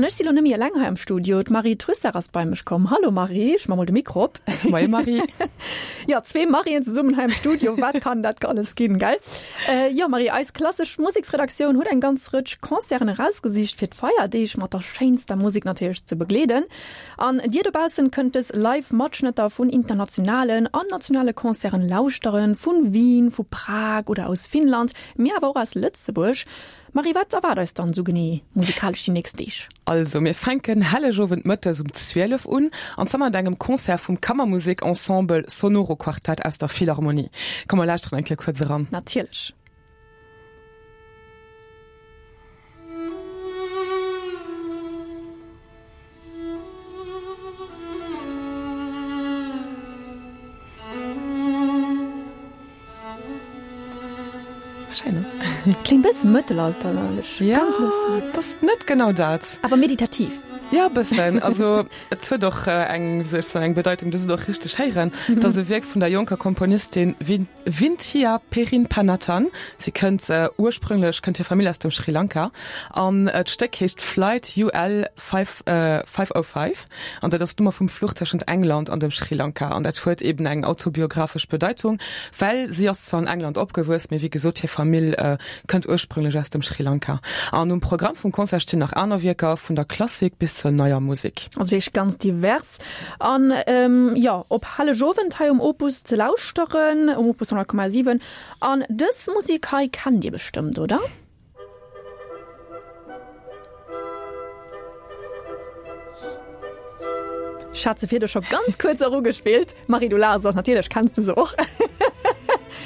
An ech si lo nëmme eleng hei am Studio. D'Marie Trussart ass bei mech komm. Hallo Marie, ech ma mol de Mikro op. Moie Marie. Jo, zwee Marien zesummen hei am Studio, wat kann dat alles ginn, gell? Jo Marie, eis klassesch Museksredaktioun huet eng ganz Rëtsch Concerten erausgesicht fir d'Feierdeeg mat der schéinster Musek natierlech ze begleeden. An dir dobaussen kënnt dës live Matschnëtter vun internationalen an nationale Concerten lauschteren, vun Wien, vu Prag oder aus Finnland, mee awer och aus Lëtzebuerg. Marie, wat erwaart eis dann esou genee musikalesch déi nächst Deeg? Also mir fänken Hellegowend mëttes um 12 un, an zwar mat engem Concert vum Kammermusek-Ensemble Sonoro Quartett aus der Philharmonie. Komm mer lauschteren eng Kéier kuerz eran. Natierlech. Schéin, ne? Kléngt bëssen mëttelalterlech. Ja, ganz bëssen. Et ass net genau dat. Awer meditativ. Ja, e bëssen. Also et huet och eng, wéi soll ech soen, eng Bedeitung, du se och richteg héieren. Et ass e Wierk vun der jonker Komponistin Vinthiya Perinpanathan. Si kënnt ursprünglech, kënnt hir Famill aus dem Sri Lanka. An d'Stéck heescht Flight UL 505 an dat ass d'Nummer vum Fluch tëschent England an dem Sri Lanka an dat huet eben eng autobiographesch Bedeitung, well si ass zwar an England opgewuess, mee wéi gesot hir Famill kënnt ursprünglech aus dem Sri Lanka. An um Programm vum Concert stinn nach aner Wierker, vun der Klassik bis zur neier Musek. Also wierklech ganz divers. An jo, op Hellegowend hei um Opus ze lauschteren, um Opus 100,7. An dës Musek hei kennt Dir bestëmmt, oder? Ech hat se virdu scho ganz kuerz erugespillt. Marie, du laachs och, natierlech kenns du se och.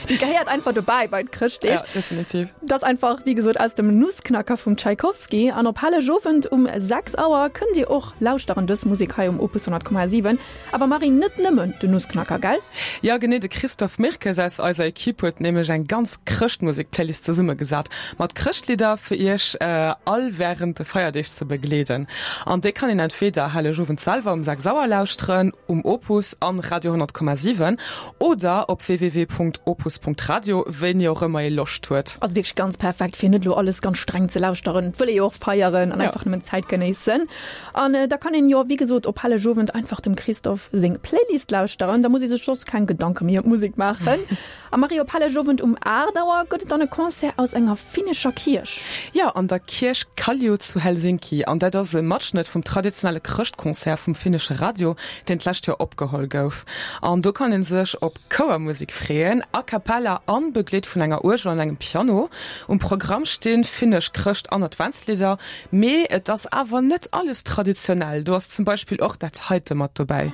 Déi gehéiert einfach dobäi bei d'Chrëschtdeeg. Ja, definitiv. Dat ass einfach, wéi gesot, aus dem Nussknacker vum Tschaikowski. An op Hellegowend um 6 Auer kënnt Dir och lauschteren dës Musek hei um Opus 100,7. Awer Marie, net nëmmen den Nussknacker, gell? Jo, genee, de Christophe Mirkes aus eiser Equipe huet nämlech eng ganz Chrëschtmusek-Playlist zesummegesat, mat Chrëschtlidder fir iech all wärend de Feierdeeg ze begleeden. An déi kann een entweder Hellegowend selwer um 6 Auer lauschteren, um Opus an Radio 100,7 oder op www.opus.radio, wéini och ëmmer ee Loscht huet. Also wierklech ganz perfekt, fir net elo alles ganz streng ze lauschteren. Et wëll ee jo och feieren an einfach nëmmen d'Zäit genéissen. An da kann een jo wéi gesot op Hellegowend einfach dem Christophe seng Playlist lauschteren, da muss ee sech soss keng Gedanke méi ëm d'Musek maachen. A Marie, op Hellegowend um 8 Auer gëtt et dann e Concert aus enger finnescher Kierch. Jo, an der Kierch Kallio zu Helsinki. An dat ass e Matschnëtt vum traditionelle Chrëschtconcert vum finnesche Radio, deen d'lescht Joer opgeholl gouf. An do kann ee sech op Chouermusek freeën, a cappella an begleet vun enger Uergel an engem Piano. Um Programm stinn finnesch Chrëscht an Adventslidder, Mee et ass awer net alles traditionell, do ass zum Beispill och dat heite mat dobäi.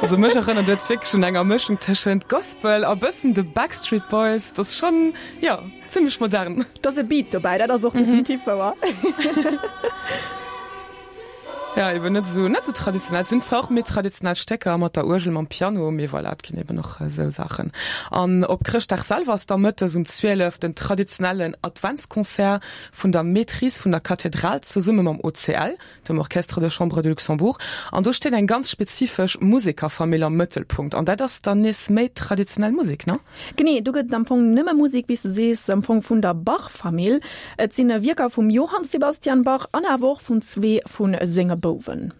Also mech erënnert et wierklech un enger Mëschung tëschent Gospel a bëssen de Backstreet Boys, dat ass schonn, jo. Zimmlech modern. Et ass e Beat dobäi, dat ass och definitiv wouer. Ja, eben net esou, net esou traditionell. Et sinn zwar och méi traditionell Stécker mat der Uergel, mam Piano, mee voilà, et ginn eben och esou Saachen. An op Chrëschtdag selwer ass da mëttes um 12 den traditionellen Adventsconcert vun der Maîtrise vun der Kathedral zesumme mam OCL. dem Orchestre de Chambre de Luxembourg, an do steet eng ganz spezifesch Musekerfamill am Mëttelpunkt, an dat ass dann nees méi traditionell Musek, ne? Genee, do gëtt et am Fong nëmme Musek, wéi s de sees, am Fong vun der Bach-Famill. Et sinn Wierker vum Johann Sebastian Bach an awer och vun zwee vu senge Bouwen.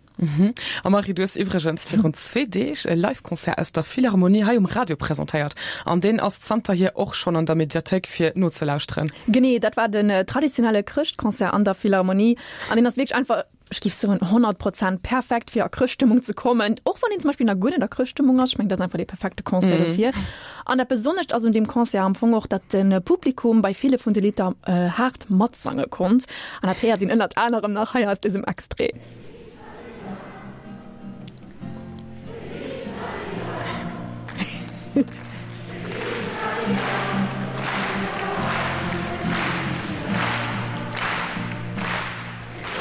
A Marie, du hues iwwregens virun zwee Deeg e Live-Concert aus der Philharmonie hei um Radio presentéiert, an deen ass zanterhier och schonn an der Mediathéik fir nozelauschteren. Genee, dat war den traditionelle Chrëschtconcert an der Philharmonie. An deen ass wierklech einfach, ech géif soen, 100 Prozent perfekt fir a Chrëschtstëmmung ze kommen. Och wann een zum Beispill nach guer net a Chrëschtstëmmung ass. Ech mengen, dat ass einfach dee perfekte Concert dofir. An dat Besonnescht ass un deem Concert am Fong och, datt de Publikum bei ville vun de Lidder haart matsange konnt. An dat héiert een ënnert anerem nach hei aus dësem Extrait.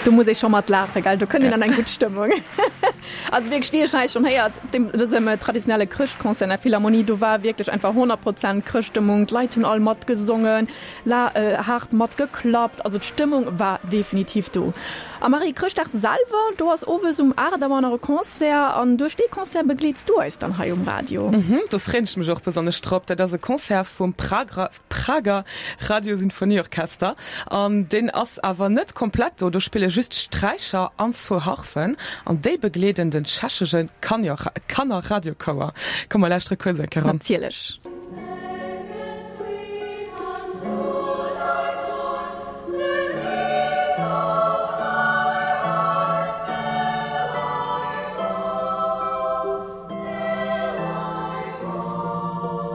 Do muss ee scho mat laachen, gell? Do kënnt een an eng gutt Stëmmung. Also wierklech, wéi ech hei schonn héiert, op deem dësem traditionelle Chrëschtconcert an der Philharmonie, do war wierklech einfach 100 Prozent Chrëschtstëmmung. D'Leit hunn all matgesongen, la haart matgeklappt. Also d'Stëmmung war definitiv do. A Marie, Chrëschtdag selwer, do ass owes um 8 Auer nach e Concert an duerch dee Concert begleets du eis dann hei um Radio. Mhm, do freeën ech mech och besonnesch drop. Dat ass e Concert vum Prager Prager Radiosinfonieorchester an deen ass awer net komplett do. Do spille just Sträicher an zwou Harfen an déi begleeden den tschechesche Kannerradiochouer. Komm mer lauschtere kuerz eng Kéier eran. Natierlech.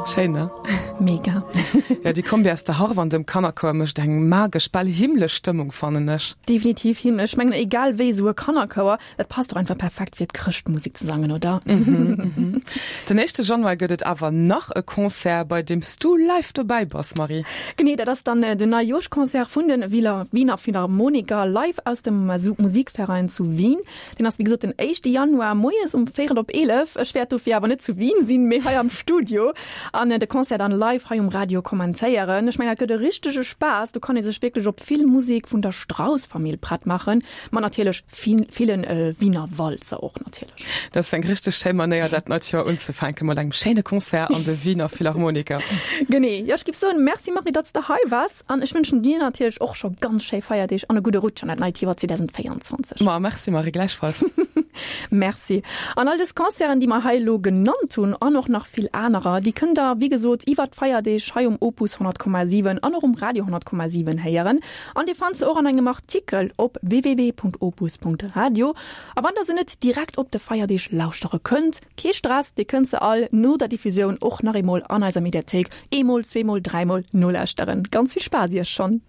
Schéin, ne? Mega. Ja, déi Kombi aus der Harf an dem Kannerchouer mécht eng magesch, bal himmlesch Stëmmung, fannen ech. Definitiv himmlesch. Ech mengen, egal wéi, esou e Kannerchouer, dat passt och einfach perfekt fir d'Chrëschtmusek ze sangen, oder? Den éischte Januar gëtt et awer nach e Concert, bei deem s du live dobäi bass, Marie. Genee, dat ass dann den Neijooschconcert vun de Wiener Philharmoniker live aus dem Musikverein zu Wien. Deen ass wéi gesot den éischte Januar moies um véierel op 11. Ech wäert dofir awer net zu Wien sinn, mee hei am Studio an de Concert dann live hei um Radio kommentéieren. Ech mengen dat gëtt e richtege Spaass, do kann ee sech wierklech op vill Musek vun der Strauss-Famill prett maachen, mat natierlech villen Wiener Walzer och natierlech. Dat ass eng richteg schéi Manéier dat neit Joer unzefänken, mat engem schéine Concert an de Wiener Philharmoniker. Genee, jo ech giff soen Merci Marie, datt s de hei waars. An ech wënschen dir natierlech och scho ganz schéi Feierdeeg an e gudde Rutsch an dat neit Joer 2024. Ma merci Marie, gläichfalls. Merci. An all dës Concerten, déi mer hei elo genannt hunn, an och nach vill anerer, déi kënnt der, wéi gesot, iwwert d'Feierdeeg hei um Opus 100,7 an och um Radio 100,7 héieren. An dir fannt se och an engem Artikel op www.opus.radio. A wann der se net direkt op de Feierdeeg lauschtere kënnt, Kee Stress, dir kënnt se all no der Diffusioun och nach eemol an eiser Mediathéik eemol, zweemol, dräimol nolauschteren. Ganz vill Spaass iech schonn!